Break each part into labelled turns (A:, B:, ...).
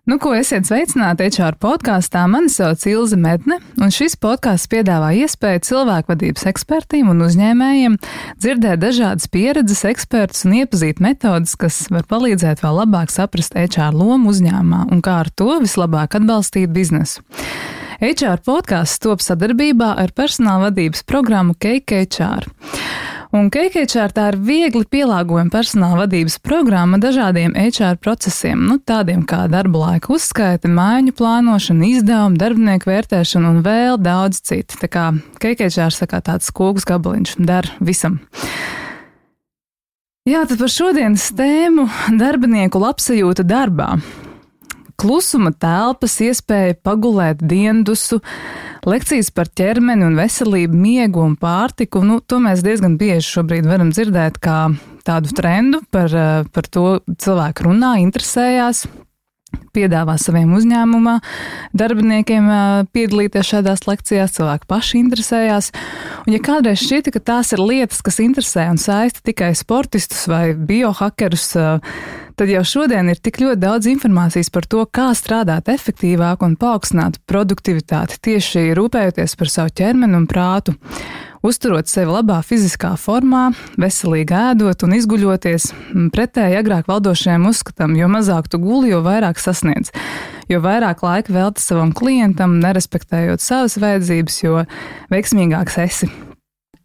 A: Nu, ko esiet sveicināti HR podkāstā. Mani sauc Ilze Medne, un šis podkāsts piedāvā iespēju cilvēkvadības ekspertiem un uzņēmējiem dzirdēt dažādas pieredzes, ekspertus un iepazīt metodas, kas var palīdzēt vēl labāk saprast HR lomu uzņēmumā un kā ar to vislabāk atbalstīt biznesu. HR podkāsts top sadarbībā ar personāla vadības programmu Cake HR. Un Cake HR tā ir viegli pielāgojama personāla vadības programma dažādiem HR procesiem, tādiem kā darba laika uzskaite, mājiņu plānošana, izdevuma, darbinieku vērtēšana un vēl daudz citu. Tā kā Cake HR saka tāds kūks gabaliņš, der visam. Jā, tad par šodienas tēmu darbinieku labsajūta darbā. Klusuma telpas, iespēja pagulēt diendusu, lekcijas par ķermeni un veselību, miegu un pārtiku. To mēs diezgan bieži šobrīd varam dzirdēt kā tādu trendu, par to cilvēki runā, interesējās, piedāvā saviem uzņēmumā darbiniekiem piedalīties šādās lekcijās, cilvēki paši interesējās. Un ja kādreiz šķita, ka tās ir lietas, kas interesē un saista tikai sportistus vai biohakerus, tad jau šodien ir tik ļoti daudz informācijas par to, kā strādāt efektīvāk un paaugstināt produktivitāti, tieši rūpējoties par savu ķermeni un prātu, uzturot sevi labā fiziskā formā, veselīgi ēdot un izguļoties, pretēji agrāk valdošajam uzskatam, jo mazāk tu guli, jo vairāk sasniedz, jo vairāk laika velti savam klientam, nerespektējot savas vajadzības, jo veiksmīgāks esi.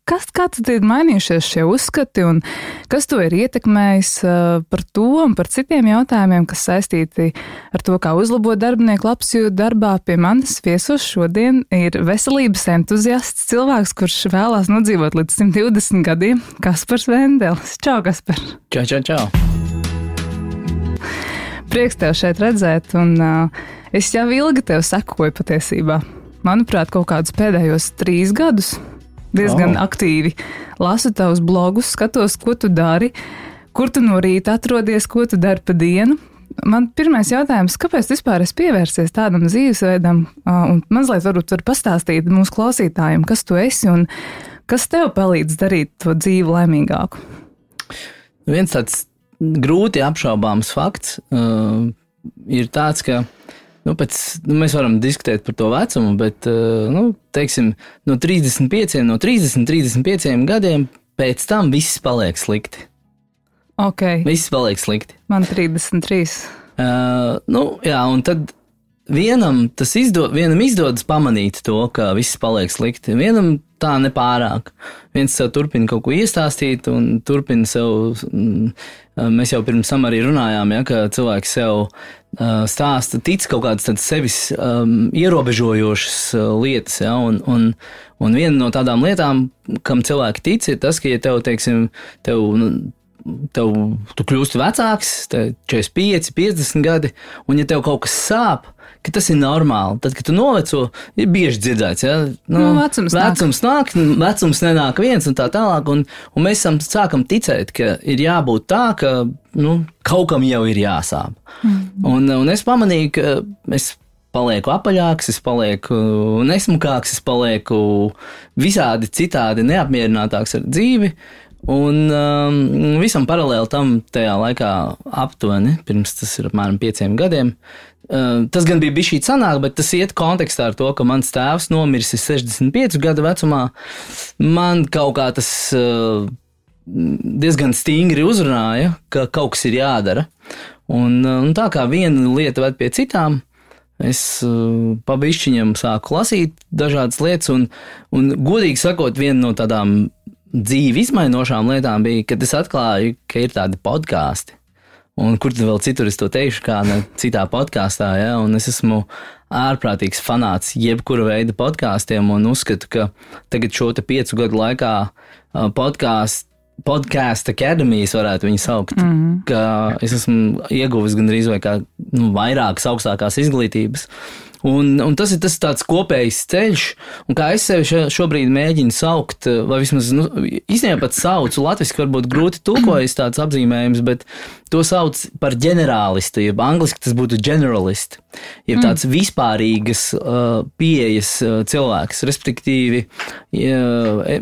A: Kā tad ir mainījušies šie uzskati un kas to ir ietekmējis par to un par citiem jautājumiem, kas saistīti ar to, kā uzlabot darbinieku labsajūtu darbā? Pie manis viesos šodien ir veselības entuziasts, cilvēks, kurš vēlās nodzīvot līdz 120 gadiem, Kaspars Vendelis. Čau, Kaspar!
B: Čau!
A: Prieks tev šeit redzēt, un es jau ilgi tev sekoju patiesībā. Manuprāt, kaut kādus pēdējos 3 gadus. Diezgan aktīvi lasu tavus blogus, skatos, ko tu dari, kur tu no rīta atrodies, ko tu dari pa dienu. Man pirmais jautājums, kāpēc vispār esi pievērsies tādam dzīvesveidam, un mazliet varbūt var pastāstīt mūsu klausītājiem, kas tu esi un kas tev palīdz darīt to dzīvi laimīgāku?
B: Viens tāds grūti apšaubāms fakts ir tāds, ka mēs varam diskutēt par to vecumu, bet, teiksim, no 30-35 gadiem pēc tam viss paliek slikti.
A: Ok.
B: Viss paliek slikti.
A: Man 33.
B: Jā, un tad vienam izdodas pamanīt to, ka viss paliek slikti. Vienam tā nepārāk. Viens sev turpina kaut ko iestāstīt un turpina sev, mēs jau pirms tam arī runājām, ka cilvēki sev stāsta, tic kaut kādas tādas sevis ierobežojošas lietas, un viena no tādām lietām, kam cilvēki tic, ir tas, ka, ja tev, teiksim, tu kļūsti vecāks, 45, 50 gadi, un ja tev kaut kas sāp, ka tas ir normāli. Tad, kad tu noveco, ir bieži dzirdēts, vecums nāk, vecums nenāk viens un tā tālāk, un mēs sākam ticēt, ka ir jābūt tā, ka, kaut kam jau ir jāsāp. Un es pamanīju, ka es palieku apaļāks, es palieku nesmukāks, es palieku visādi citādi neapmierinātāks ar dzīvi, un visam paralēli tam tajā laikā aptuveni, pirms tas ir apmēram 5 gadiem, tas gan bija bišķīt sanāk, bet tas iet kontekstā ar to, ka mans tēvs nomiris 65 gadu vecumā. Man kaut kā tas diezgan stingri uzrunāja, ka kaut kas ir jādara. Un tā kā viena lieta ved pie citām, es pa bišķiņam sāku lasīt dažādas lietas, un godīgi sakot, viena no tādām dzīvi izmainošām lietām bija, kad es atklāju, ka ir tādi podkāsti. Un kur tad vēl citur es to teikšu, kā ne citā podkāstā, un es esmu ārprātīgs fanāts jebkura veida podkāstiem un uzskatu, ka tagad šo te 5 gadu laikā Podcast Academijas varētu viņu saukt, ka es esmu ieguvis gandrīz vai kā vairākas augstākās izglītības. Un tas ir tas tāds kopējs ceļš, un kā es sevi šobrīd mēģinu saukt, vai vismaz, īstenībā pat saucu, latviski varbūt grūti tulkojas tāds apzīmējums, bet to sauc par ģenerālistu, jeb angliski tas būtu generalist, jeb tāds vispārīgas pieejas cilvēks, respektīvi,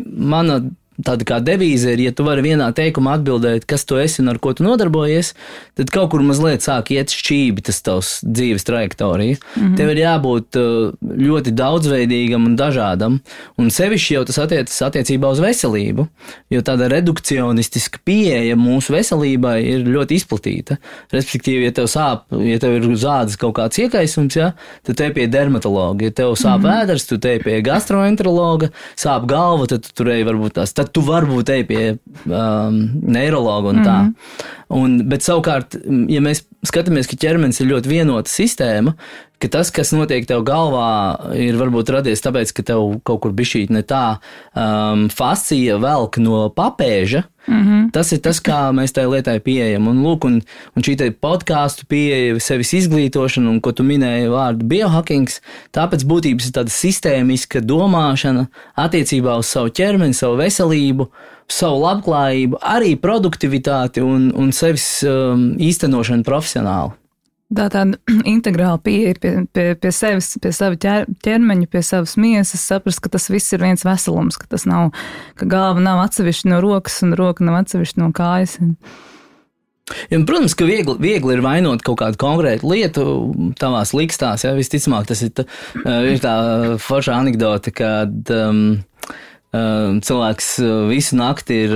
B: mana tāda kā devīze ir, ja tu vari vienā teikumā atbildēt, kas tu esi un ar ko tu nodarbojies, tad kaut kur mazliet sāk iet šķībi tas tavs dzīves trajektorija. Tev ir jābūt ļoti daudzveidīgam un dažādam, un sevišķi jau tas attiecas attiecībā uz veselību, jo tāda redukcionistiska pieeja mūsu veselībai ir ļoti izplatīta. Respektīvi, ja tev sāp, ja tev ir uz ādas kaut kāds iekaisums, ja, tad te pie dermatologa, ja tev sāp ēders, tu te pie gastroenterologa, sāp galva, tad tu turēji varbūt tās, tad tu varbūt ej pie neirologa un tā. Bet savukārt, ja mēs skatāmies, ka ķermenis ir ļoti vienota sistēma, ka tas, kas notiek tev galvā, ir varbūt radies tāpēc, ka tev kaut kur bišķīt ne tā fascija velk no papēža, tas ir tas, kā mēs tai lietai pieejam. Un lūk, un šī te podcastu pieeja, sevis izglītošana, un ko tu minēji vārdu biohackings, tāpēc būtības ir tāda sistēmiska domāšana attiecībā uz savu ķermeni, savu veselību, savu labklājību, arī produktivitāti un sevis īstenošanu profesionāli.
A: Tāda integrāla pieeja pie sevis, pie sava ķermeņa, pie savas miesas, saprast, ka tas viss ir viens veselums, ka tas nav, ka galva nav atsevišķa no rokas un roka nav atsevišķa no kājas.
B: Ja, protams, ka viegli ir vainot kaut kādu konkrētu lietu tavās likstās, ja, visticamāk tas ir tā forša anekdote, kad cilvēks visu nakti ir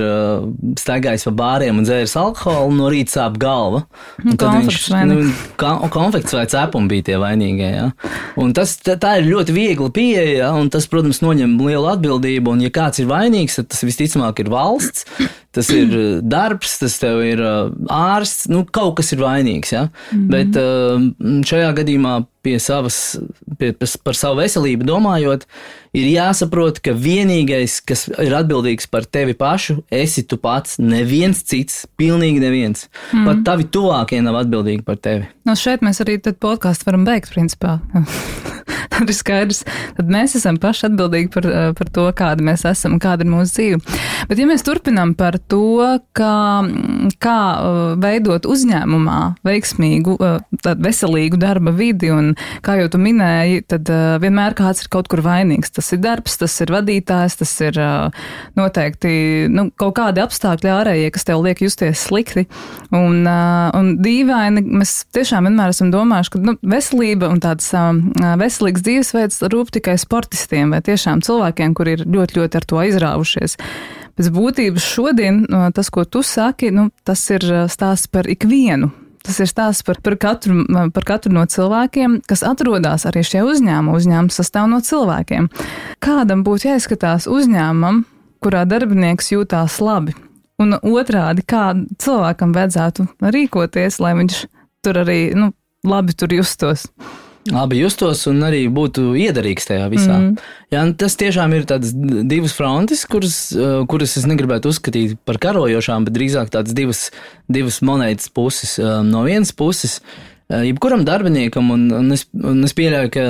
B: staigājis pa bāriem un dzēris alkoholu, no rīta sāp galva. Konfekts vai cepumi bija tie vainīgie. Ja? Un tā ir ļoti viegla pieeja, ja? Un tas, protams, noņem lielu atbildību, un ja kāds ir vainīgs, tad tas visticamāk ir valsts, tas ir darbs, tas tev ir ārsts, kaut kas ir vainīgs. Ja? Bet šajā gadījumā par savu veselību domājot, ir jāsaprot, ka vienīgais, kas ir atbildīgs par tevi pašu, esi tu pats, neviens cits, pilnīgi neviens. Pat tavi tuvākie nav atbildīgi par tevi.
A: Šeit mēs arī tad podcastu varam beigt, principā. Tad ir skaidrs, tad mēs esam paši atbildīgi par to, kāda mēs esam un kāda ir mūsu dzīve. Bet ja mēs turpinām par to, kā veidot uzņēmumā veiksmīgu, veselīgu darba vidi, un kā jau tu minēji, tad vienmēr kāds ir kaut kur vainīgs. Tas ir darbs, tas ir vadītājs, tas ir noteikti kaut kādi apstākļi ārējie, kas tev liek justies slikti. Un dīvaini, mēs tiešām vienmēr esam domājuši, ka veselība un tāds veselīgs dzīvesveids rūp tikai sportistiem vai tiešām cilvēkiem, kuri ir ļoti, ļoti ar to aizrāvušies. Pēc būtības šodien tas, ko tu saki, tas ir stāsts par ikvienu. Tas ir stāsts par katru no cilvēkiem, kas atrodas arī šajā uzņēmumā. Uzņēmums sastāv no cilvēkiem. Kādam būtu jāizskatās uzņēmumam, kurā darbinieks jūtās labi? Un otrādi, kā cilvēkam vajadzētu rīkoties, lai viņš tur arī labi tur justos?
B: Labi justos un arī būtu iederīgs tajā visā. Jā, tas tiešām ir tādas divas frontes, kuras es negribētu uzskatīt par karojošām, bet drīzāk tādas divas monētas puses. No vienas puses, jebkuram darbiniekam, un es pieļauju, ka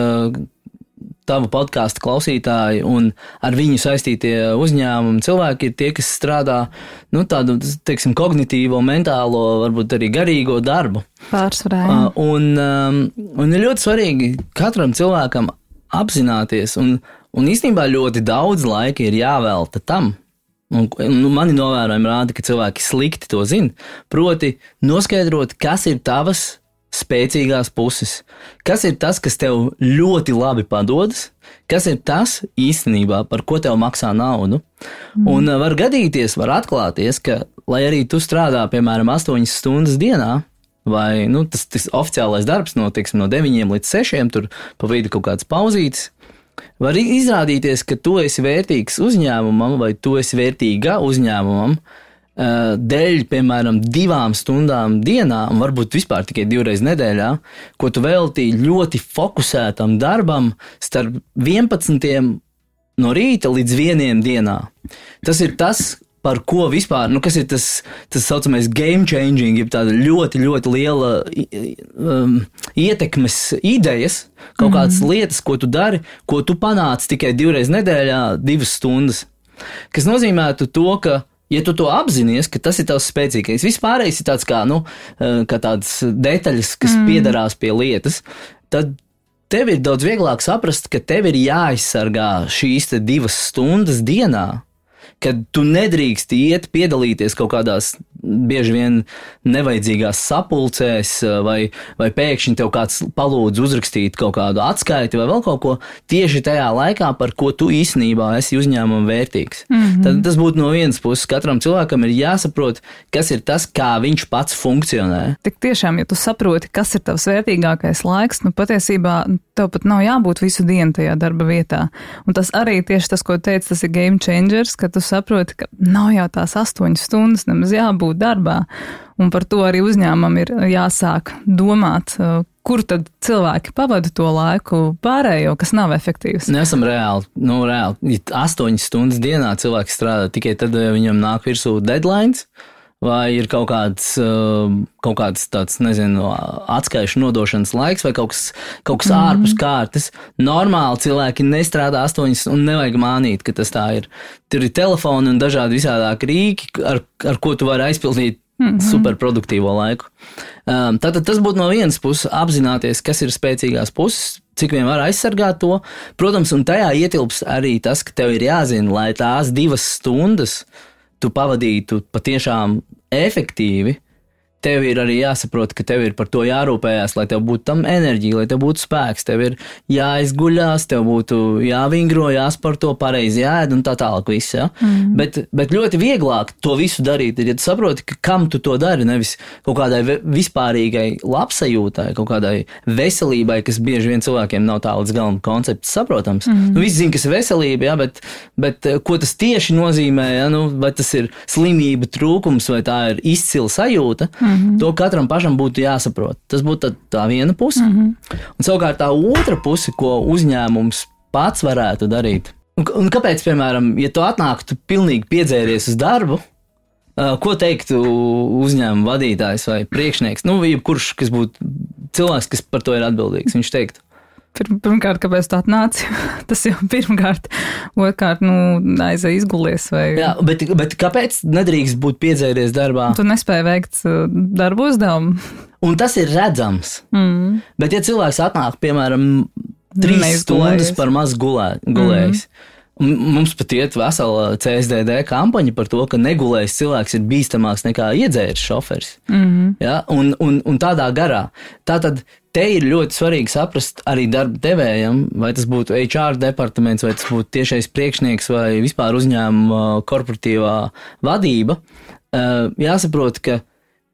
B: tavu podcastu klausītāji un ar viņu saistītie uzņēmumi cilvēki ir tie, kas strādā tādu, teiksim, kognitīvo, mentālo, varbūt arī garīgo darbu.
A: Pārsvarā.
B: Un ir ļoti svarīgi katram cilvēkam apzināties, un īstenībā ļoti daudz laika ir jāvelta tam. Mani novērojumi rāda, ka cilvēki slikti to zina, proti noskaidrot, kas ir tavas spēcīgās puses. Kas ir tas, kas tev ļoti labi padodas, kas ir tas īstenībā, par ko tev maksā naudu. Un var gadīties, var atklāties, ka, lai arī tu strādā, piemēram, 8 stundas dienā, vai tas oficiālais darbs no 9 līdz 6, tur pa vidu kaut kāds pauzītes, var izrādīties, ka tu esi vērtīgs uzņēmumam, vai tu esi vērtīga uzņēmumam, dēļ, piemēram, 2 stundām dienā, un varbūt vispār tikai 2 reizes nedēļā, ko tu veltīji ļoti fokusētam darbam starp 11 no rīta līdz 1 dienā. Tas ir tas, par ko vispār, kas ir tas saucamais game changing, jeb tāda ļoti, ļoti liela ietekmes idejas, kaut kādas lietas, ko tu dari, ko tu panāc tikai 2 reizes nedēļā, 2 stundas. Kas nozīmētu to, ka ja tu to apzinies, ka tas ir tavs spēcīgais, vispārējais ir tāds kā tādas detaļas, kas piedarās pie lietas, tad tev ir daudz vieglāk saprast, ka tev ir jāizsargā šīs 2 stundas dienā, kad tu nedrīkst piedalīties kaut kādās bieži vien nevajadzīgās sapulcēs, vai pēkšņi tev kāds palūdz uzrakstīt kaut kādu atskaiti vai vēl kaut ko tieši tajā laikā, par ko tu īstenībā esi uzņēmuma vērtīgs. Tad tas būtu no vienas puses. Katram cilvēkam ir jāsaprot, kas ir tas, kā viņš pats funkcionē.
A: Tik tiešām, ja tu saproti, kas ir tavs vērtīgākais laiks, patiesībā tev pat nav jābūt visu dienu tajā darba vietā. Un tas arī tieši tas, ko teici, tas ir game changers, ka tu saproti, ka nav jau tās 8 stundas nemaz jābūt darbā. Un par to arī uzņēmumam ir jāsāk domāt, kur tad cilvēki pavada to laiku pārējo, kas nav efektīvs.
B: Nesam reāli. Ja 8 stundas dienā cilvēks strādā tikai tad, ja viņam nāk virsū deadlines, vai ir kaut kāds tāds, nezinu, atskaišu nodošanas laiks vai kaut kas ārpus kārtas. Normāli cilvēki nestrādā 8 un nevajag mānīt, ka tas tā ir. Tur ir telefoni un dažādi visādāki rīki, ar ko tu vari aizpildīt superproduktīvo laiku. Tātad tas būtu no vienas puses apzināties, kas ir spēcīgās puses, cik vien var aizsargāt to. Protams, un tajā ietilps arī tas, ka tev ir jāzina, lai tās 2 stundas tu pavadītu patiešām efektīvi, tev ir arī jāsaprot, ka tev ir par to jārūpējās, lai tev būtu tam enerģija, lai tev būtu spēks, tev ir jāizguļās, tev būtu jāvingro, jāsporto, pareizi jāēd un tā tālāk viss, ja? Bet ļoti vieglāk to visu darīt, ja tu saproti, ka kam tu to dari, nevis kaut kādai vispārīgai labsajūtai, kaut kādai veselībai, kas bieži vien cilvēkiem nav tā līdz galam koncepts saprotams. Visi zina, kas ir veselība, ja? Bet ko tas tieši nozīmē, ja? Vai tas ir slimība trūkums, vai tā ir izcila sajūta, to katram pašam būtu jāsaprot. Tas būtu tā viena puse. Un savukārt tā otra puse, ko uzņēmums pats varētu darīt. Un kāpēc, piemēram, ja tu atnāktu pilnīgi piedzēries uz darbu, ko teiktu uzņēmuma vadītājs vai priekšnieks? Jebkurš, kas būtu cilvēks, kas par to ir atbildīgs, viņš teiktu.
A: Pirmkārt, kāpēc tā atnāci? Tas jau pirmkārt, otrkārt, aizēj izgulies vai...
B: Jā, bet kāpēc nedrīkst būt piedzēries darbā?
A: Tu nespēji veikt darbu uzdevumu. Un
B: tas ir redzams. Bet ja cilvēks atnāk, piemēram, 3 stundas par maz gulējis, mums pat iet vesela CSDD kampaņa par to, ka negulējis cilvēks ir bīstamāks nekā iedzēris šoferis. Ja? Un tādā garā. Tātad te ir ļoti svarīgi saprast arī darba devējam, vai tas būtu HR departaments, vai tas būtu tiešais priekšnieks vai vispār uzņēmuma korporatīvā vadība. Jāsaprot, ka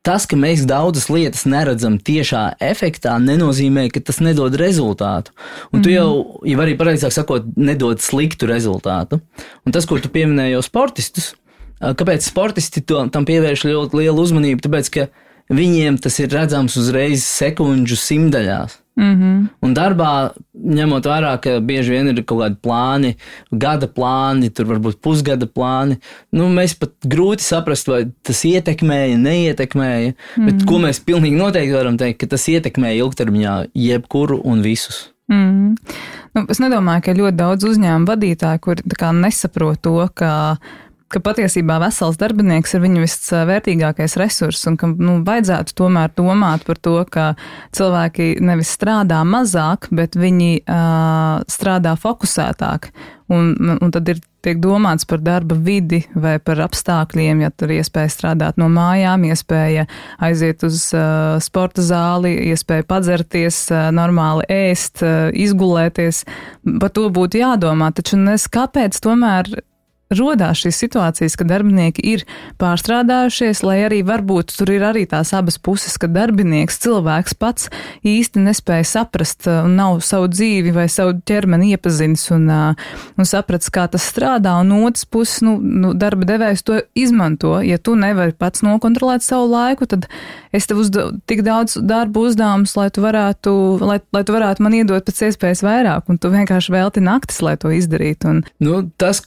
B: tas, ka mēs daudzas lietas neredzam tiešā efektā, nenozīmē, ka tas nedod rezultātu. Un tu jau arī pareizāk sakot, nedod sliktu rezultātu. Un tas, ko tu pieminēji jau sportistus, kāpēc sportisti tam pievērš ļoti lielu uzmanību? Tāpēc, ka viņiem tas ir redzams uzreiz sekundžu simtaļās. Un darbā, ņemot vērā, ka bieži vien ir kaut kādi plāni, gada plāni, tur varbūt pusgada plāni, mēs pat grūti saprast, vai tas ietekmēja, neietekmēja, bet ko mēs pilnīgi noteikti varam teikt, ka tas ietekmēja ilgtermiņā jebkuru un visus.
A: Es nedomāju, ka ļoti daudz uzņēmumu vadītāju, kuri nesaprot to, ka patiesībā vesels darbinieks ir viņa visvērtīgākais resurs un ka vajadzētu tomēr domāt par to, ka cilvēki nevis strādā mazāk, bet viņi strādā fokusētāk. Un tad tiek domāts par darba vidi vai par apstākļiem, ja tur iespēja strādāt no mājām, iespēja aiziet uz sporta zāli, iespēja padzerties, normāli ēst, izgulēties. Par to būtu jādomā, taču kāpēc tomēr rodās šīs situācijas, ka darbinieki ir pārstrādājušies, lai arī varbūt tur ir arī tās abas puses, ka darbinieks, cilvēks pats īsti nespēja saprast un nav savu dzīvi vai savu ķermeni iepazinis un sapratis, kā tas strādā, un otrs puses, darba devējs to izmanto. Ja tu nevari pats nokontrolēt savu laiku, tad es tev uzdevu tik daudz darbu uzdevumus, lai tu varētu man iedot pēc iespējas vairāk, un tu vienkārši velti naktis, lai to izdarītu.
B: Tas,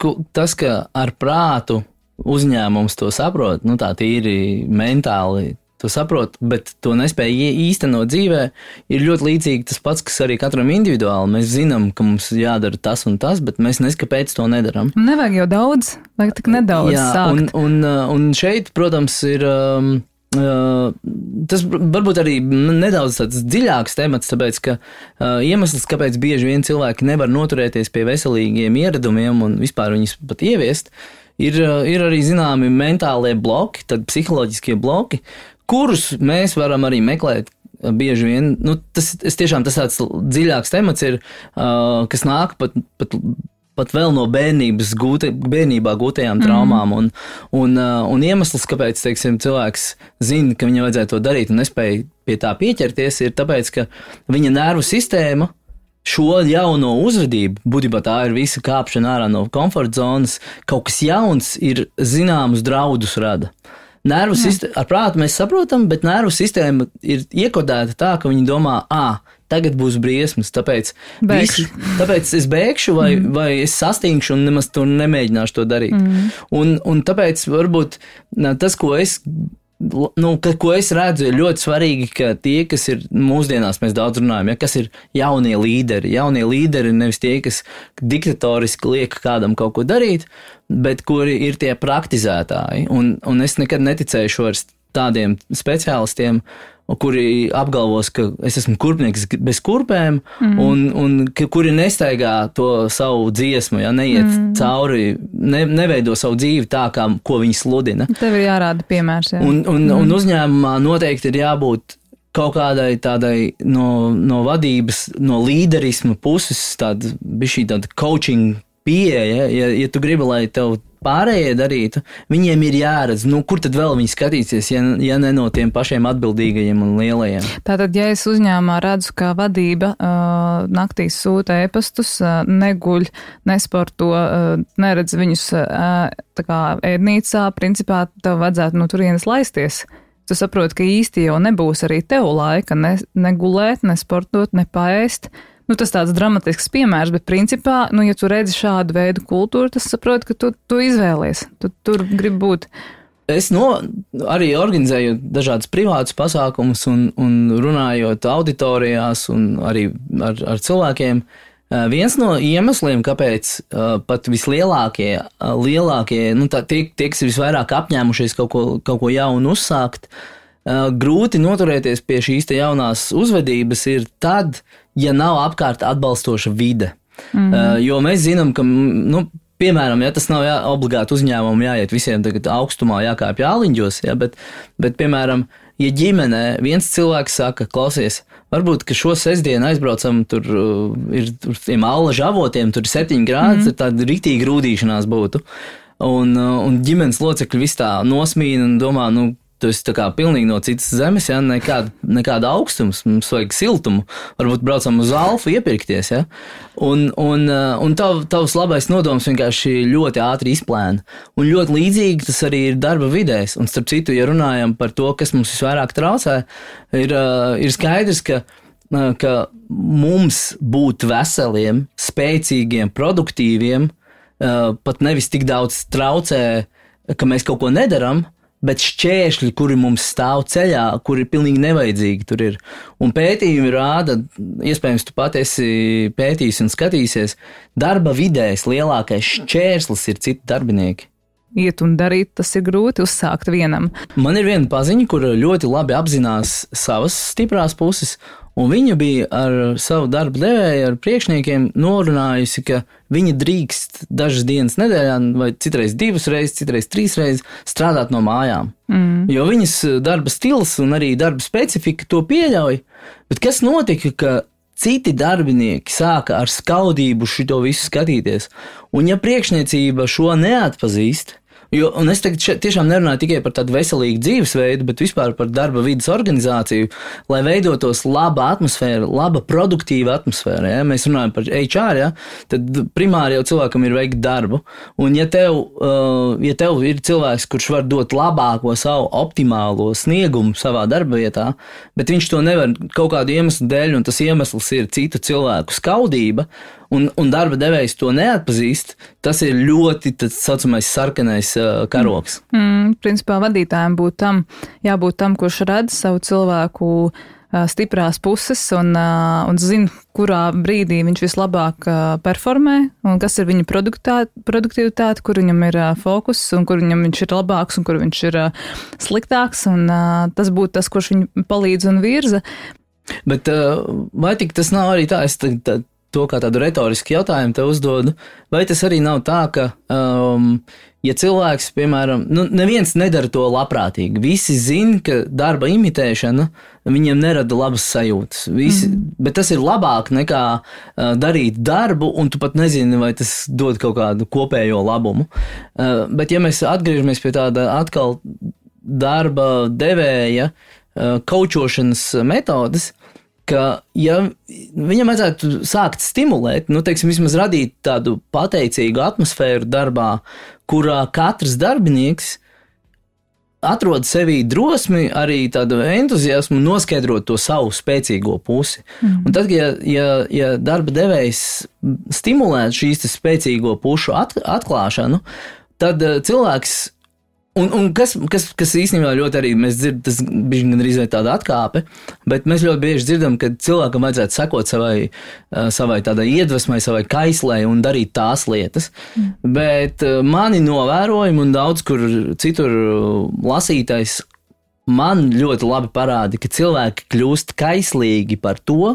B: ka ar prātu uzņēmums to saprot, tā tīri mentāli to saprot, bet to nespēja īstenot dzīvē, ir ļoti līdzīgi tas pats, kas arī katram individuāli. Mēs zinām, ka mums jādara tas un tas, bet mēs kāpēc to nedaram.
A: Nevajag jau daudz, vajag tik nedaudz sākt.
B: Un šeit, protams, ir... tas varbūt arī nedaudz tāds dziļāks temats, tāpēc, ka iemesls, kāpēc bieži vien cilvēki nevar noturēties pie veselīgiem ieradumiem un vispār viņus pat ieviest, ir arī zināmi mentālie bloki, tad psiholoģiskie bloki, kurus mēs varam arī meklēt. Bieži vien, tas tāds dziļāks temats ir, kas nāk pat vēl no bērnībā gūtajām traumām, un iemesls, kāpēc, teiksim, cilvēks zina, ka viņam vajadzētu to darīt un nespēja pie tā pieķerties, ir tāpēc, ka viņa nervu sistēma šo jauno uzvedību, būtībā tā ir visa kāpšana ārā no komforta zonas, kaut kas jauns ir zināmus draudus rada. Nervu sistēma, ar prātu mēs saprotam, bet nervu sistēma ir iekodēta tā, ka viņi domā, tagad būs briesmas, tāpēc es bēgšu vai es sastingšu un nemaz to nemēģināšu to darīt. Un tāpēc varbūt tas, ko es redzu, ir ļoti svarīgi, ka tie, kas ir mūsdienās, mēs daudz runājam, kas ir jaunie līderi. Jaunie līderi ir nevis tie, kas diktatoriski liek kādam kaut ko darīt, bet kuri ir tie praktizētāji. Un es nekad neticēšu vairs tādiem speciālistiem, kuri apgalvos, ka es esmu kurpnieks bez kurpēm, un kuri nestaigā to savu dziesmu, neiet cauri, neveido savu dzīvi tā, ko viņi sludina.
A: Tev ir jārāda piemērs. Jā.
B: Un uzņēmumā noteikti ir jābūt kaut kādai tādai no vadības, no līderisma puses, tāda coaching pieeja, ja tu gribi, lai tev pārējie darītu, viņiem ir jāredz, kur tad vēl viņi skatīsies, ja ne no tiem pašiem atbildīgajiem un lielajiem.
A: Tātad, ja es uzņēmumā redzu, ka vadība naktīs sūta e-pastus, neguļ, nesporto, neredz viņus tā kā ēdnīcā, principā tev vajadzētu no turienes laisties. Tu saproti, ka īsti jau nebūs arī tev laika negulēt, nesportot, nepaēst. Tas tāds dramatisks piemērs, bet principā, ja tu redzi šādu veidu kultūru, tas saproti, ka tu izvēlies, tu tur gribi būt.
B: Es arī organizēju dažādus privātus pasākumus un runājot auditorijās un arī ar cilvēkiem. Viens no iemesliem, kāpēc pat vislielākie, tie, kas ir visvairāk apņēmušies kaut ko jaunu uzsākt, grūti noturēties pie šīs te jaunās uzvedības ir tad, ja nav apkārt atbalstoša vide. Jo mēs zinām, ka, piemēram, tas nav obligāti uzņēmumu jāiet visiem tagad augstumā, jākāpj āliņģos, bet, piemēram, ja ģimenē viens cilvēks saka, klausies, varbūt, ka šo sestdienu aizbraucam, tur ir tiem allaža avotiem, tur ir 7 grādi, tur tāda riktīgi grūdīšanās būtu, un ģimenes locekļi vis tā nosmīna un domā, tu esi tā kā pilnīgi no citas zemes, nekāda augstums, mums vajag siltumu, varbūt braucam uz Alfu iepirkties, un tavs labais nodoms vienkārši ļoti ātri izplēna, un ļoti līdzīgi tas arī ir darba vidēs, un starp citu, ja runājam par to, kas mums visvairāk traucē, ir skaidrs, ka mums būt veseliem, spēcīgiem, produktīviem, pat nevis tik daudz traucē, ka mēs kaut ko nedaram, bet šķēršļi, kuri mums stāv ceļā, kuri pilnīgi nevajadzīgi tur ir. Un pētījumi rāda, iespējams, tu pat esi pētījis un skatīsies, darba vidēs lielākais šķērslis ir citi darbinieki.
A: Iet un darīt, tas ir grūti uzsākt vienam.
B: Man ir viena paziņa, kur ļoti labi apzinās savas stiprās puses, un viņa bija ar savu darbu devēju, ar priekšniekiem norunājusi, ka viņa drīkst dažas dienas nedēļā, vai citreiz 2 reizes, citreiz 3 reizes strādāt no mājām. Jo viņas darba stils un arī darba specifika to pieļauj, bet kas notika, ka citi darbinieki sāka ar skaudību šito visu skatīties, un ja priekšniecība šo neatpazīst, un es tagad tiešām nerunāju tikai par tādu veselīgu dzīvesveidu, bet vispār par darba vidas organizāciju, lai veidotos laba atmosfēra, laba produktīva atmosfēra. Ja? Mēs runājam par HR, tad primāri jau cilvēkam ir veikt darbu. Un ja tev ir cilvēks, kurš var dot labāko savu optimālo sniegumu savā darba vietā, bet viņš to nevar kaut kādu iemeslu dēļ, un tas iemesls ir citu cilvēku skaudība, un darba devējs to neatpazīst, tas ir ļoti tāds saucamais sarkanais karoks.
A: Principā vadītājiem jābūt tam, kurš redz savu cilvēku stiprās puses un zina, kurā brīdī viņš vislabāk performē un kas ir viņa produktivitāte, kur viņam ir fokus un kur viņam viņš ir labāks un kur viņš ir sliktāks, un tas būtu tas, kurš viņu palīdz un virza.
B: Bet vai tik tas nav arī tā, es to kā tādu retorisku jautājumu te uzdodu, vai tas arī nav tā, ka, ja cilvēks, piemēram, neviens nedara to labprātīgi, visi zin, ka darba imitēšana viņiem nerada labas sajūtas, bet tas ir labāk nekā darīt darbu, un tu pat nezini, vai tas dod kaut kādu kopējo labumu. Bet ja mēs atgriežamies pie tāda atkal darba devēja kaučošanas metodas, ka, ja viņam vajadzētu sākt stimulēt, teiksim, vismaz radīt tādu pateicīgu atmosfēru darbā, kurā katrs darbinieks atrod sevī drosmi, arī tādu entuziasmu noskaidrot to savu spēcīgo pusi. Un tad, ja darba devējs stimulētu šīs spēcīgo pušu atklāšanu, tad cilvēks Un kas īstenībā ļoti arī mēs dzirdam, tas bija gandrīz vai tāda atkāpe, bet mēs ļoti bieži dzirdam, ka cilvēkam vajadzētu sekot savai tādai iedvesmai, savai kaislei un darīt tās lietas. Bet mani novērojumi un daudz kur citur lasītais man ļoti labi parāda, ka cilvēki kļūst kaislīgi par to,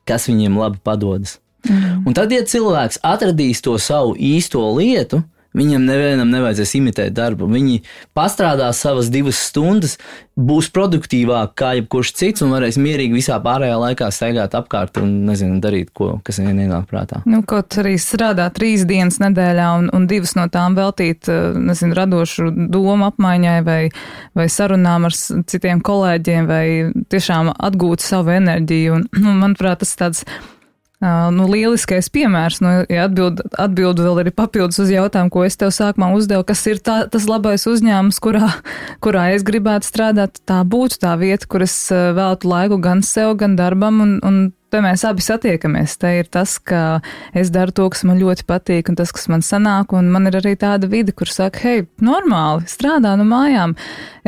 B: kas viņiem labi padodas. Un tad, ja cilvēks atradīs to savu īsto lietu, viņam nevienam nevajadzēs imitēt darbu. Viņi pastrādās savas 2 stundas, būs produktīvāk kā jebkurš cits un varēs mierīgi visā pārējā laikā staigāt apkārt un, darīt ko, kas viņiem ienāk prātā.
A: Kaut arī strādā 3 dienas nedēļā un 2 no tām veltīt, radošu domu apmaiņai vai sarunām ar citiem kolēģiem vai tiešām atgūt savu enerģiju. Un manuprāt, tas tāds lieliskais piemērs, ja atbildu vēl arī papildus uz jautājumu, ko es tev sākumā uzdevu, kas ir tas labais uzņēmums, kurā es gribētu strādāt, tā būtu tā vieta, kur es veltu laiku gan sev, gan darbam, un te mēs abi satiekamies. Te ir tas, ka es daru to, kas man ļoti patīk, un tas, kas man sanāk, un man ir arī tāda vide, kur saka, hei, normāli, strādā no mājām,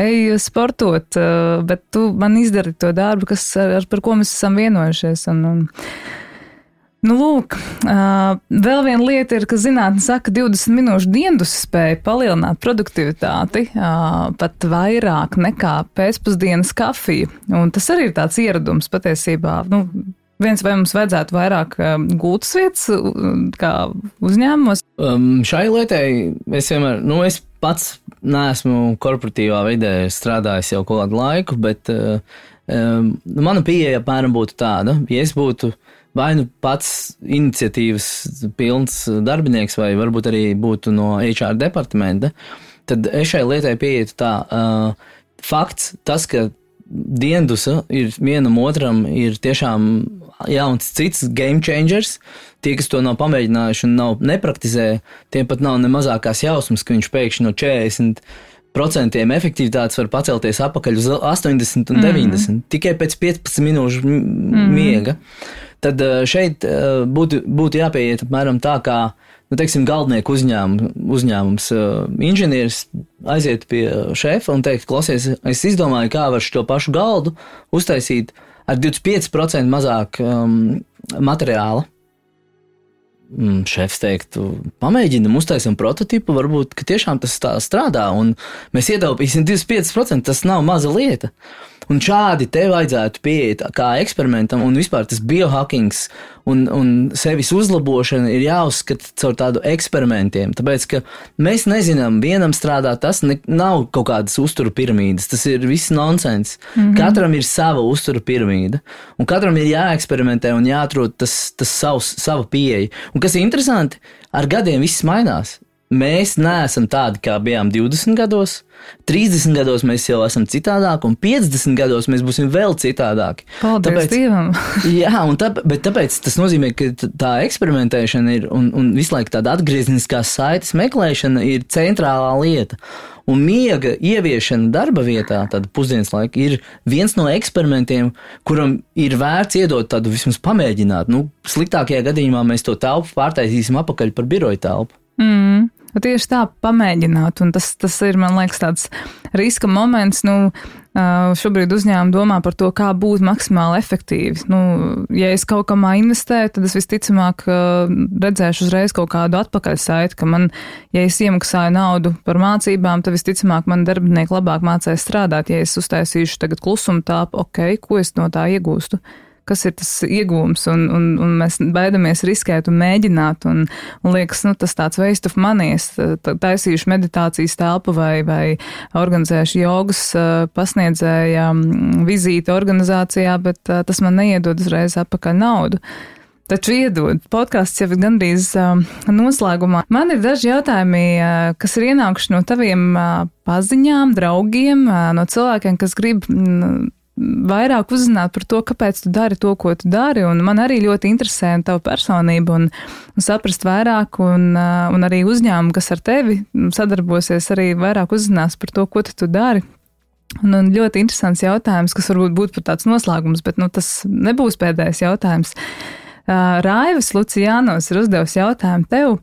A: ej sportot, bet tu man izdari to darbu, par ko mēs esam vienojušies, lūk, vēl viena lieta ir, ka zinātne saka, 20 minūšu dienas spēja palielināt produktivitāti pat vairāk nekā pēcpusdienas kafija. Un tas arī ir tāds ieradums patiesībā. Vai mums vajadzētu vairāk gultas vietas kā uzņēmumos?
B: Šai lietai es vienmēr, es pats neesmu korporatīvā vidē strādājis jau kaut kādu laiku, bet mana pieeja apmēram būtu tāda, ja es būtu vai pats iniciatīvas pilns darbinieks, vai varbūt arī būtu no HR departamenta, tad es šai lietai pieietu tā. Fakts, tas, ka diendusa ir vienam otram ir tiešām jauns cits game changers, tie, kas to nav pamēģinājuši un nepraktizē, tiem pat nav ne mazākās jausmas, ka viņš pēkšņi no 40% efektivitātes var pacelties apakaļ uz 80 un 90, tikai pēc 15 minūšu miega. Tad šeit būtu jāpieiet apmēram tā, kā, teiksim, galdnieku uzņēmums inženieris aiziet pie šefa un teikt, klausies, es izdomāju, kā var šo pašu galdu uztaisīt ar 25% mazāk materiāla. Šefs teiktu, pamēģinam, uztaisim prototipu, varbūt, ka tiešām tas tā strādā, un mēs ietaupīsim 25%, tas nav maza lieta. Un šādi te vajadzētu pieiet kā eksperimentam, un vispār tas biohackings un sevis uzlabošana ir jāuzskata caur tādu eksperimentiem, tāpēc, ka mēs nezinām, vienam strādā tas, nav kaut kādas uztura piramīdas, tas ir viss nonsens. Katram ir sava uztura piramīda, un katram ir jāeksperimentē un jāatrod tas sava pieeja. Un kas ir interesanti, ar gadiem viss mainās. Mēs neesam tādi, kā bijām 20 gados, 30 gados mēs jau esam citādāki, un 50 gados mēs būsim vēl citādāki.
A: Paldies Dievam!
B: Jā, bet tāpēc tas nozīmē, ka tā eksperimentēšana ir, un visu laiku tāda atgriezniskās saites meklēšana ir centrālā lieta. Un miega ieviešana darba vietā, tāda pusdienas laika, ir viens no eksperimentiem, kuram ir vērts iedot tādu vismaz pamēģināt. Sliktākajā gadījumā mēs to telpu pārtaisīsim apakaļ par biroja telpu.
A: Tieši tā, pamēģināt, un tas ir, man liekas, tāds riska moments, šobrīd uzņēmumi domā par to, kā būt maksimāli efektīvi. Ja es kaut kamā investēju, tad es visticamāk redzēšu uzreiz kaut kādu atpakaļsaiti, ka ja es iemaksāju naudu par mācībām, tad visticamāk man darbinieki labāk mācēs strādāt. Ja es uztaisīšu tagad klusuma tāpu, ko es no tā iegūstu? kas ir tas iegūms, un mēs baidamies riskēt un mēģināt, un liekas, tas tāds waste of money, es taisīšu meditācijas telpu vai organizēšu jogas pasniedzēja vizīti organizācijā, bet tas man neiedod uzreiz atpakaļ naudu. Taču iedod. Podcasts jau ir gandrīz noslēgumā. Man ir daži jautājumi, kas ir ienākuši no taviem paziņām, draugiem, no cilvēkiem, kas grib vairāk uzzināt par to, kāpēc tu dari to, ko tu dari, un man arī ļoti interesē tava personība un saprast vairāk, un arī uzņēmumi, kas ar tevi sadarbosies, arī vairāk uzzinās par to, ko tu dari. Un ļoti interesants jautājums, kas varbūt būtu par tāds noslēgums, bet tas nebūs pēdējais jautājums. Raivis Lucijānos ir uzdevis jautājumu tev,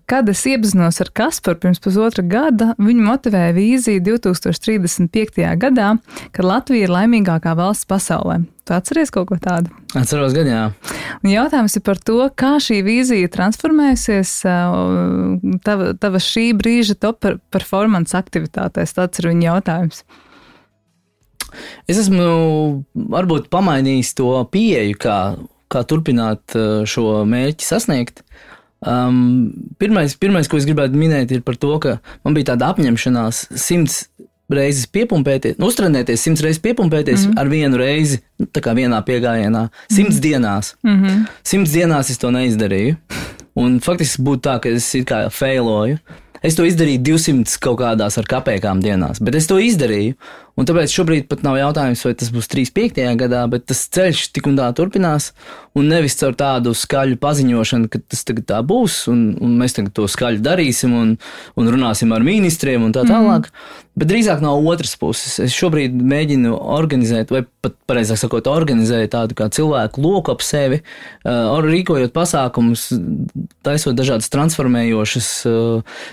A: kad es iepazinos ar Kasparu pirms 1,5 gada, viņu motivēja vīzija 2035. gadā, kad Latvija ir laimīgākā valsts pasaulē. Tu atceries kaut ko tādu?
B: Atceros gan, jā.
A: Un jautājums ir par to, kā šī vīzija transformēsies tava šī brīža top performance aktivitātēs. Tāds ir viņa jautājums.
B: Es esmu varbūt pamainījis to pieeju, kā turpināt šo mērķi sasniegt. Pirmais, ko es gribētu minēt, ir par to, ka man bija tāda apņemšanās 100 reizes piepumpēties, uztrenēties 100 reizes piepumpēties ar vienu reizi, tā kā vienā piegājienā, 100 dienās. 100 dienās es to neizdarīju. Un faktiski būtu tā, ka es it kā failoju. Es to izdarīju 200 kaut kādās ar kapēkām dienās, bet es to izdarīju. Un tāpēc šobrīd pat nav jautājums, vai tas būs 35. gadā, bet tas ceļš tik un tā turpinās. Un nevis caur tādu skaļu paziņošanu, ka tas tagad tā būs, un mēs tagad to skaļi darīsim un runāsim ar ministriem un tā tālāk. Bet drīzāk no otras puses. Es šobrīd mēģinu organizēt, vai pat pareizāk sakot, organizēt tādu kā cilvēku loku ap sevi, rīkojot pasākumus, taisot dažādas transformējošas,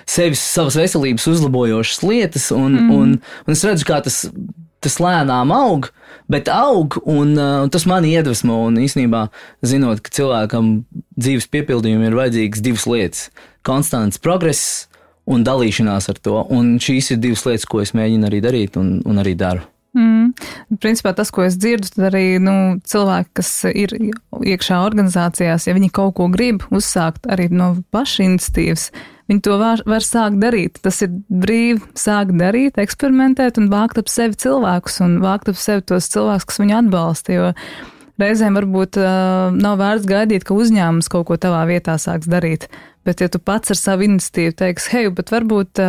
B: savas veselības uzlabojošas lietas, un es redzu, kā tas lēnām aug, bet aug, un tas mani iedvesmo, un īstenībā, zinot, ka cilvēkam dzīves piepildījumi ir vajadzīgas 2 lietas – konstants progress un dalīšanās ar to, un šīs ir 2 lietas, ko es mēģinu arī darīt un arī daru.
A: Principā tas, ko es dzirdu, tad arī cilvēki, kas ir iekšā organizācijās, ja viņi kaut ko grib uzsākt arī no paša iniciatīvas, viņi to var sākt darīt. Tas ir brīvi sākt darīt, eksperimentēt un vākt ap sevi cilvēkus un vākt ap sevi tos cilvēkus, kas viņu atbalsta, jo reizēm varbūt nav vērts gaidīt, ka uzņēmums kaut ko tavā vietā sāks darīt, bet ja tu pats ar savu iniciatīvu teiks, hei, bet varbūt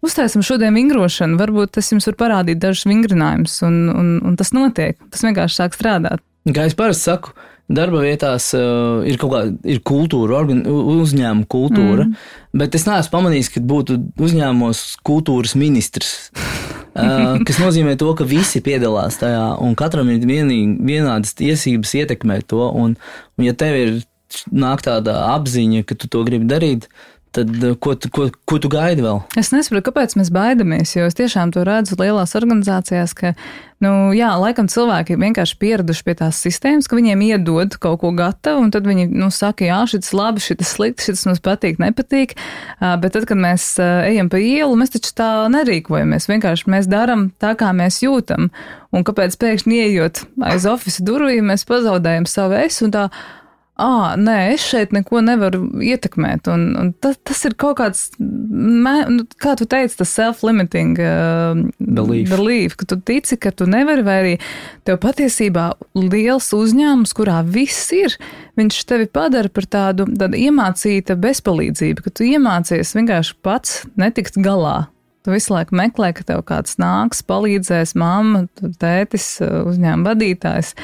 A: uztaisim šodien vingrošanu, varbūt es jums varu parādīt dažus vingrinājumus, un tas notiek. Tas vienkārši sāk strādāt.
B: Kā es parasti saku, darba vietās ir kaut kāda kultūra, uzņēmuma kultūra, bet es neesmu pamanījis, ka būtu uzņēmumos kultūras ministrs, kas nozīmē to, ka visi piedalās tajā, un katram ir vienādas tiesības ietekmēt to, un ja tev nāk tāda apziņa, ka tu to gribi darīt, tad ko tu gaidi vēl?
A: Es nesaprotu, kāpēc mēs baidamies, jo es tiešām to redzu lielās organizācijās, ka, laikam cilvēki vienkārši pieraduši pie tās sistēmas, ka viņiem iedod kaut ko gatavu, un tad viņi, saka, jā, šitas labi, šitas slikti, šitas mums patīk, nepatīk, bet tad, kad mēs ejam pa ielu, mēs taču tā nerīkojamies, vienkārši mēs daram tā, kā mēs jūtam, un kāpēc pēkšņi ieejot aiz ofisa durvīm, mēs pazaudējam savu es un tā, nē, es šeit neko nevaru ietekmēt, un tas ir kaut kāds, kā tu teici, tas self-limiting belief, ka tu tici, ka tu nevari, vai arī tev patiesībā liels uzņēmums, kurā viss ir, viņš tevi padara par tādu iemācīta bezpalīdzību, ka tu iemācies vienkārši pats netikt galā. Tu visu laiku meklē, ka tev kāds nāks, palīdzēs, mamma, tētis, uzņēmuma vadītājs.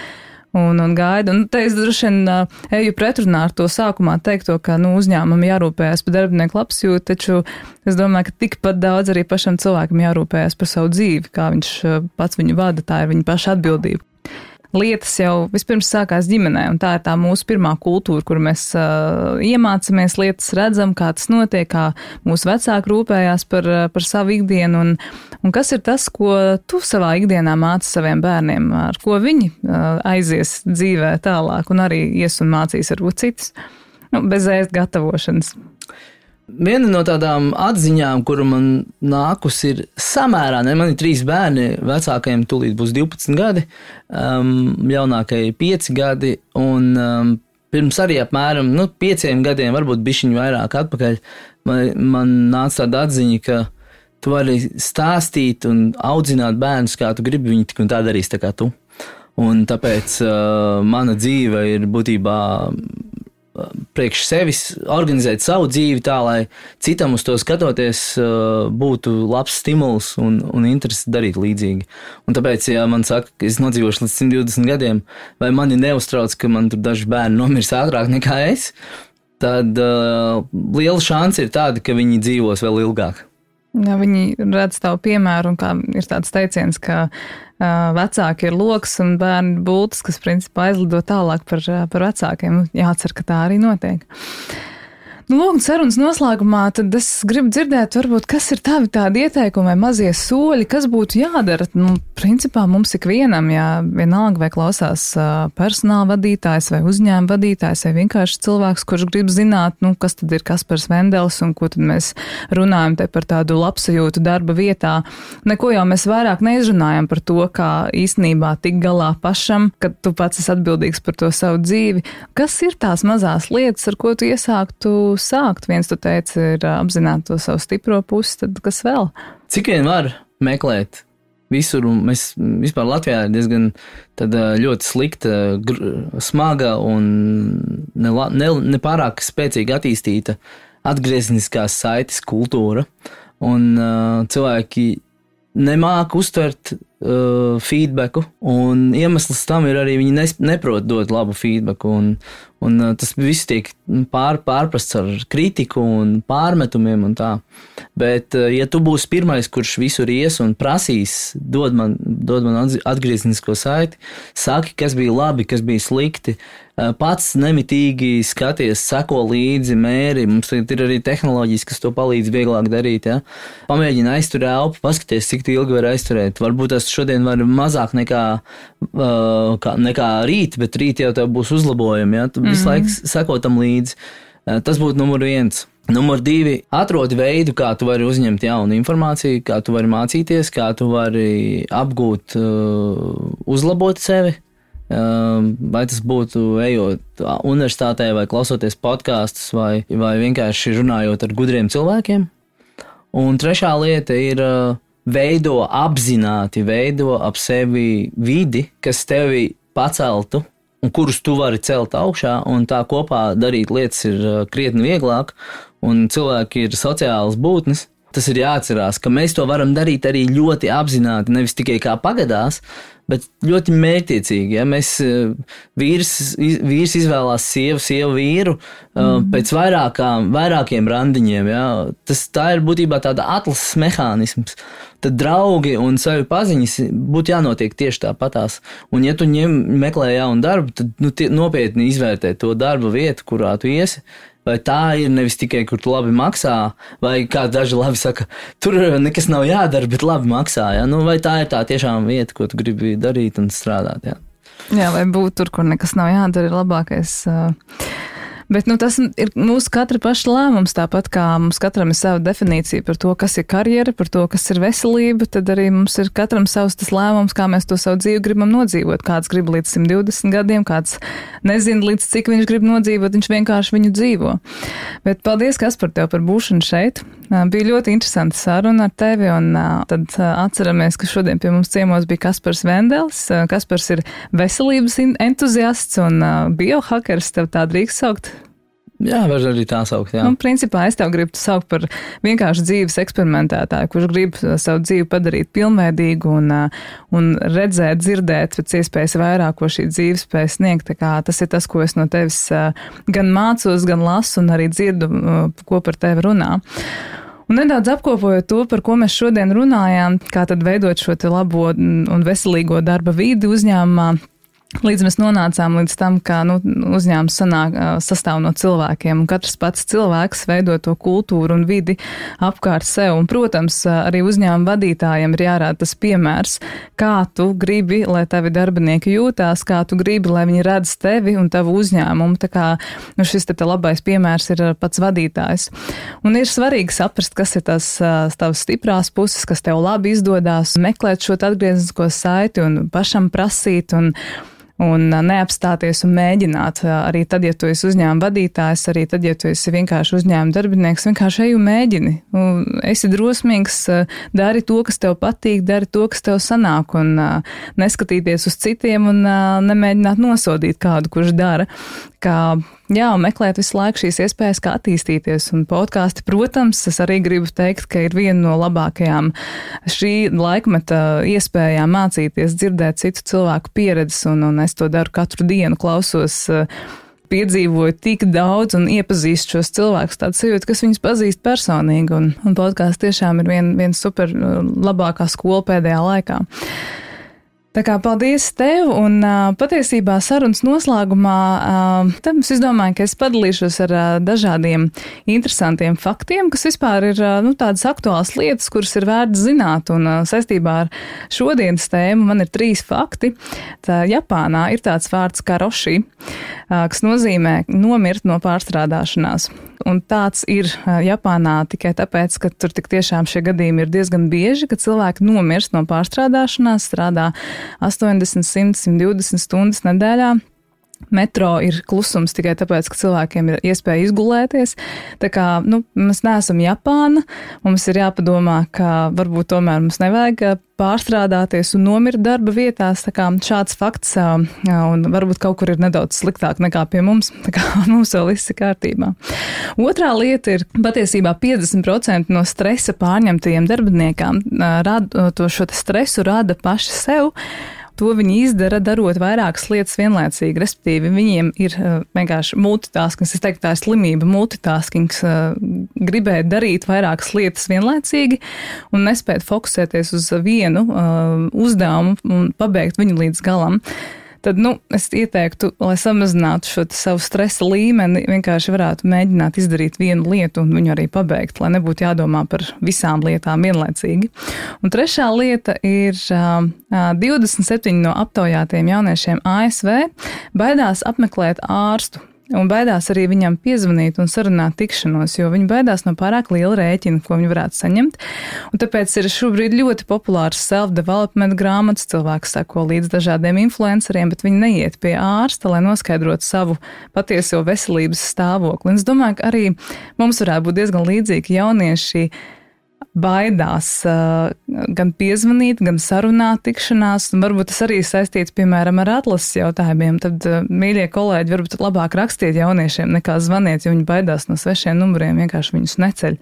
A: Un gaida. Un te es droši vien eju pretrunā ar to sākumā teikto, ka uzņēmumam jārūpējas par darbinieku labsajūtu, taču es domāju, ka tikpat daudz arī pašam cilvēkam jārūpējas par savu dzīvi, kā viņš pats viņu vada, tā ir viņa paša atbildība. Lietas jau vispirms sākās ģimenē, un tā ir tā mūsu pirmā kultūra, kur mēs iemācamies lietas, redzam, kā tas notiek, kā mūsu vecāki rūpējās par savu ikdienu, un kas ir tas, ko tu savā ikdienā māci saviem bērniem, ar ko viņi aizies dzīvē tālāk, un arī ies un mācīs varbūt citus, bez ēst gatavošanas.
B: Viena no tādām atziņām, kuru man nākus ir samērā, man ir 3 bērni, vecākajiem tūlīt būs 12 gadi, jaunākajai 5 gadi, un pirms arī apmēram 5 gadiem, varbūt bišķiņu vairāk atpakaļ, man nāca tāda atziņa, ka tu vari stāstīt un audzināt bērnus, kā tu gribi, viņi tik un tā darīs tā kā tu. Un tāpēc mana dzīve ir būtībā priekš sevis organizēt savu dzīvi tā, lai citam uz to skatoties būtu labs stimuls un interesi darīt līdzīgi. Un tāpēc, ja man saka, ka es nodzīvošu līdz 120 gadiem, vai mani neuztrauc, ka man tur daži bērni nomirs ātrāk nekā es, tad liela šansa ir tāda, ka viņi dzīvos vēl ilgāk.
A: Ja viņi redz tavu piemēru, un kā ir tāds teiciens, ka vecāki ir loks un bērni bultas, kas principā aizlido tālāk par vecākiem. Jācer, ka tā arī notiek. Lūk, sarunas noslēgumā, tad es gribu dzirdēt, varbūt, kas ir tādi ieteikumi vai mazie soļi, kas būtu jādara. Principā mums ikvienam, ja vienalga vai klausās personāla vadītājs vai uzņēmuma vadītājs vai vienkārši cilvēks, kurš grib zināt, kas tad ir Kaspars Vendels un ko tad mēs runājam te par tādu labsajūtu darba vietā. Neko jau mēs vairāk neizrunājam par to, kā īstenībā tik galā pašam, kad tu pats esi atbildīgs par to savu dzīvi. Kas ir tās mazās lietas, ar ko tu iesāktu sākt? Viens, tu teici, ir apzināt to savu stipro pusi, tad kas vēl?
B: Cik vien var meklēt visur, un mēs vispār Latvijā ir diezgan ļoti slikta, smaga un nepārāk spēcīgi attīstīta atgriezniskās saites kultūra, un cilvēki nemāk uztvert feedbacku, un iemesls tam ir arī viņi neprot dot labu feedbacku, un tas viss tiek pārprasts ar kritiku un pārmetumiem un tā. Bet, ja tu būsi pirmais, kurš visur ies un prasīs, dod man atgrieznisko saiti, saki, kas bija labi, kas bija slikti, pats nemitīgi skaties, seko līdzi, mēri, mums ir arī tehnoloģijas, kas to palīdz vieglāk darīt, ja? Pamēģini aizturēt elpu, paskaties, cik ilgi var aizturēt. Varbūt tas šodien var mazāk nekā rīt, bet rīt jau tev būs uzlabojumi, ja? Tu visu laiku seko tam līdzi. Tas būtu numur 1. Numur 2. Atrodi veidu, kā tu vari uzņemt jaunu informāciju, kā tu vari mācīties, kā tu vari apgūt, uzlabot sevi. Vai tas būtu ejot universitātē vai klausoties podkastus vai vienkārši runājot ar gudriem cilvēkiem. Un 3. lieta ir apzināti veido ap sevi vidi, kas tevi paceltu un kurus tu vari celt augšā, un tā kopā darīt lietas ir krietni vieglāk, un cilvēki ir sociālas būtnes. Tas ir jāatcerās, ka mēs to varam darīt arī ļoti apzināti, nevis tikai kā pagadās, bet ļoti mērķtiecīgi. Ja? Vīrs izvēlās sievu vīru pēc vairākiem randiņiem. Ja? Tā ir būtībā tāda atlases mehānisms. Tad draugi un savi paziņas būtu jānotiek tieši tāpatās. Un ja tu meklē jaunu darbu, tad nopietni izvērtē to darba vietu, kurā tu iesi. Vai tā ir nevis tikai, kur tu labi maksā, vai kā daži labi saka, tur nekas nav jādara, bet labi maksā. Ja? Vai tā ir tā tiešām vieta, ko tu gribi darīt un strādāt. Ja?
A: Jā, vai būt tur, kur nekas nav jādara, ir labākais. Bet tas ir mūsu katra paša lēmums, tāpat kā mums katram ir sava definīcija par to, kas ir karjera, par to, kas ir veselība, tad arī mums ir katram savs tas lēmums, kā mēs to savu dzīvi gribam nodzīvot. Kāds grib līdz 120 gadiem, kāds nezina līdz cik viņš grib nodzīvot, viņš vienkārši viņu dzīvo. Bet paldies, Kaspar, tev par būšanu šeit. Bija ļoti interesanta saruna ar tevi, un tad atceramies, ka šodien pie mums ciemos bija Kaspars Vendels. Kaspars ir veselības entuziasts un biohakers, tev tā drīkst saukt?
B: Jā, var arī tā saukt, jā.
A: Principā es tev gribu saukt par vienkārši dzīves eksperimentētāju, kurš grib savu dzīvi padarīt pilnveidīgu un redzēt, dzirdēt pēc iespējas vairāk, ko šī dzīve spēj sniegt. Tā kā tas ir tas, ko es no tevis gan mācos, gan lasu un arī dzirdu, ko par tevi runā. Un nedaudz apkopojot to, par ko mēs šodien runājām, kā tad veidot šo te labo un veselīgo darba vidi uzņēmumā. Līdz mēs nonācām līdz tam, ka uzņēmums sastāv no cilvēkiem, un katrs pats cilvēks veido to kultūru un vidi apkārt sev. Un, protams, arī uzņēmuma vadītājiem ir jārāda tas piemērs, kā tu gribi, lai tavi darbinieki jūtās, kā tu gribi, lai viņi redz tevi un tavu uzņēmumu. Tā kā šis te labais piemērs ir pats vadītājs. Un ir svarīgi saprast, kas ir tavas stiprās puses, kas tev labi izdodās, meklēt šo atgrieznisko saiti un pašam prasīt un neapstāties un mēģināt. Arī tad, ja tu esi uzņēmuma vadītājs, arī tad, ja tu esi vienkārši uzņēmuma darbinieks, vienkārši ej un mēģini. Esi drosmīgs, dari to, kas tev patīk, dari to, kas tev sanāk, un neskatīties uz citiem un nemēģināt nosodīt kādu, kurš dara. Un meklēt visu laiku šīs iespējas, kā attīstīties. Un podkāsti, protams, es arī gribu teikt, ka ir viena no labākajām šī laikmeta iespējām mācīties, dzirdēt citu cilvēku pieredzes, un es to daru katru dienu, klausos, piedzīvoju tik daudz un iepazīstu šos cilvēkus, tādu sajūtu, kas viņus pazīst personīgi, un podkāsts tiešām ir viena super labākā skola pēdējā laikā. Tā kā paldies tev, un patiesībā sarunas noslēgumā tad es domāju, ka es padalīšos ar dažādiem interesantiem faktiem, kas vispār ir tādas aktuālas lietas, kuras ir vērts zināt, un saistībā ar šodienas tēmu man ir 3 fakti. Tā Japānā ir tāds vārds karoshi, kas nozīmē nomirt no pārstrādāšanās. Un tāds ir Japānā tikai tāpēc, ka tur tik tiešām šie gadījumi ir diezgan bieži, ka cilvēki nomirst no pārstrādāšanās, strādā 80, 100, 120 stundas nedēļā. Metro ir klusums tikai tāpēc, ka cilvēkiem ir iespēja izgulēties. Tā kā, mēs neesam Japāna, mums ir jāpadomā, ka varbūt tomēr mums nevajag pārstrādāties un nomirt darba vietās. Tā kā šāds fakts, un varbūt kaut kur ir nedaudz sliktāk nekā pie mums, tā kā mums vēl viss ir kārtībā. Otrā lieta ir, patiesībā 50% no stresa pārņemtajiem darbiniekām šo stresu rada paši sev. To viņi izdara, darot vairākas lietas vienlaicīgi, respektīvi viņiem ir vienkārši multitaskings, es teiktu tā ir slimība, multitaskings, gribēt darīt vairākas lietas vienlaicīgi un nespēt fokusēties uz vienu uzdevumu un pabeigt viņu līdz galam. Tad, es ieteiktu, lai samazinātu šo savu stresa līmeni, vienkārši varētu mēģināt izdarīt vienu lietu un viņu arī pabeigt, lai nebūtu jādomā par visām lietām vienlaicīgi. Un trešā lieta ir 27 no aptaujātiem jauniešiem ASV baidās apmeklēt ārstu. Un baidās arī viņam piezvanīt un sarunāt tikšanos, jo viņi baidās no pārāk liela rēķina, ko viņi varētu saņemt. Un tāpēc ir šobrīd ļoti populārs self-development grāmatas, cilvēks sako līdz dažādiem influenceriem, bet viņi neiet pie ārsta, lai noskaidrotu savu patieso veselības stāvokli. Un es domāju, ka arī mums varētu būt diezgan līdzīgi jaunieši baidās gan piezvanīt, gan sarunāt tikšanās, un varbūt tas arī saistīts, piemēram, ar atlases jautājumiem. Tad, mīļie kolēģi, varbūt labāk rakstiet jauniešiem nekā zvaniet, jo viņi baidās no svešiem numuriem, vienkārši viņus neceļ.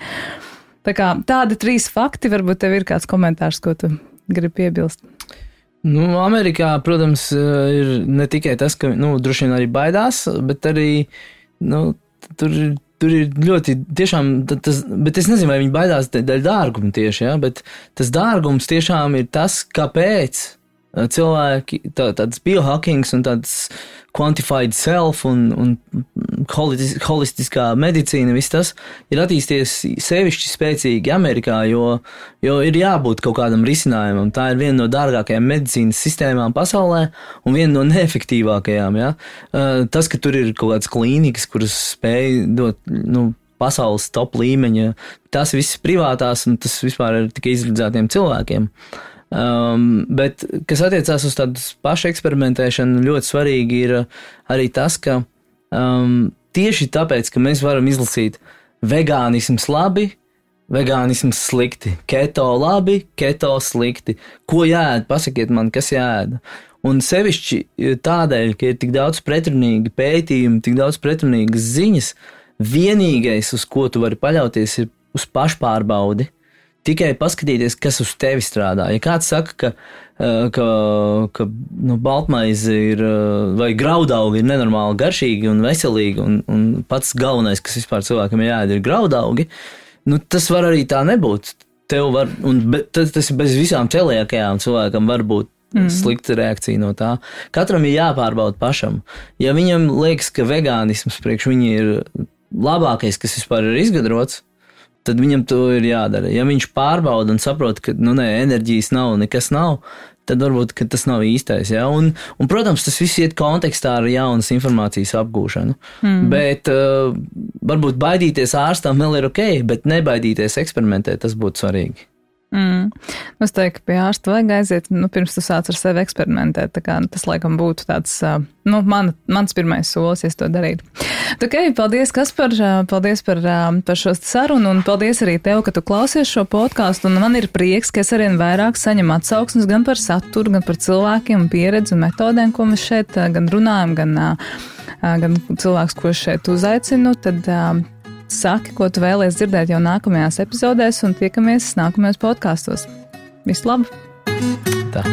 A: Tā kā tādi 3 fakti, varbūt tev ir kāds komentārs, ko tu gribi piebilst.
B: Amerikā, protams, ir ne tikai tas, ka, droši vien arī baidās, bet arī, Tur ir ļoti tiešām, bet es nezinu, vai viņi baidās dēļ dārguma tieši, bet tas dārgums tiešām ir tas, kāpēc cilvēki, tāds biohackings un tāds quantified self un holistiskā medicīna, viss tas ir attīstījies sevišķi spēcīgi Amerikā, jo ir jābūt kaut kādam risinājumam. Tā ir viena no dārgākajām medicīnas sistēmām pasaulē un viena no neefektīvākajām. Ja? Tas, ka tur ir kaut kādas klīnikas, kuras spēj dot, pasaules top līmeņa, tas viss privātās un tas vispār ir tikai izredzētiem cilvēkiem. Bet, kas attiecās uz tādu pašu eksperimentēšanu, ļoti svarīgi ir arī tas, ka tieši tāpēc, ka mēs varam izlasīt vegānisms labi, vegānisms slikti, keto labi, keto slikti, ko jāēd, pasakiet man, kas jāēd. Un sevišķi tādēļ, ka ir tik daudz pretrunīgi pētījumi, tik daudz pretrunīgas ziņas, vienīgais, uz ko tu vari paļauties, ir uz pašpārbaudi. Tikai paskatīties, kas uz tevi strādā. Ja kāds saka, ka baltmaize ir, vai graudaugi ir nenormāli garšīgi un veselīgi, un pats galvenais, kas vispār cilvēkam jāēd, ir graudaugi, tas var arī tā nebūt. Tas ir bez visām celiakajām cilvēkam var būt slikta reakcija no tā. Katram ir jāpārbauda pašam. Ja viņam liekas, ka vegānisms priekš viņi ir labākais, kas vispār ir izgudrots, tad viņam to ir jādara. Ja viņš pārbauda un saprot, ka enerģijas nav, nekas nav, tad varbūt tas nav īstais. Ja? Un, protams, tas viss iet kontekstā ar jaunas informācijas apgūšanu. Bet varbūt baidīties ārstam vēl ir ok, bet nebaidīties eksperimentēt, tas būtu svarīgi.
A: Es teiktu, ka pie ārsta vajag aiziet, pirms tu sāc ar sevi eksperimentēt. Tā kā tas laikam būtu tāds, mans pirmais solis, ja es to darītu. Okay, paldies, Kaspar, paldies par šo sarunu, un paldies arī tev, ka tu klausies šo podcastu, un man ir prieks, ka es arvien vairāk saņemu atsauksmes gan par saturu, gan par cilvēkiem, pieredzi un metodēm, ko mēs šeit gan runājam, gan cilvēks, ko šeit uzaicinu, tad saki, ko tu vēlies dzirdēt jau nākamajās epizodēs, un tiekamies nākamajos podkastos. Visu labu!
B: Tā.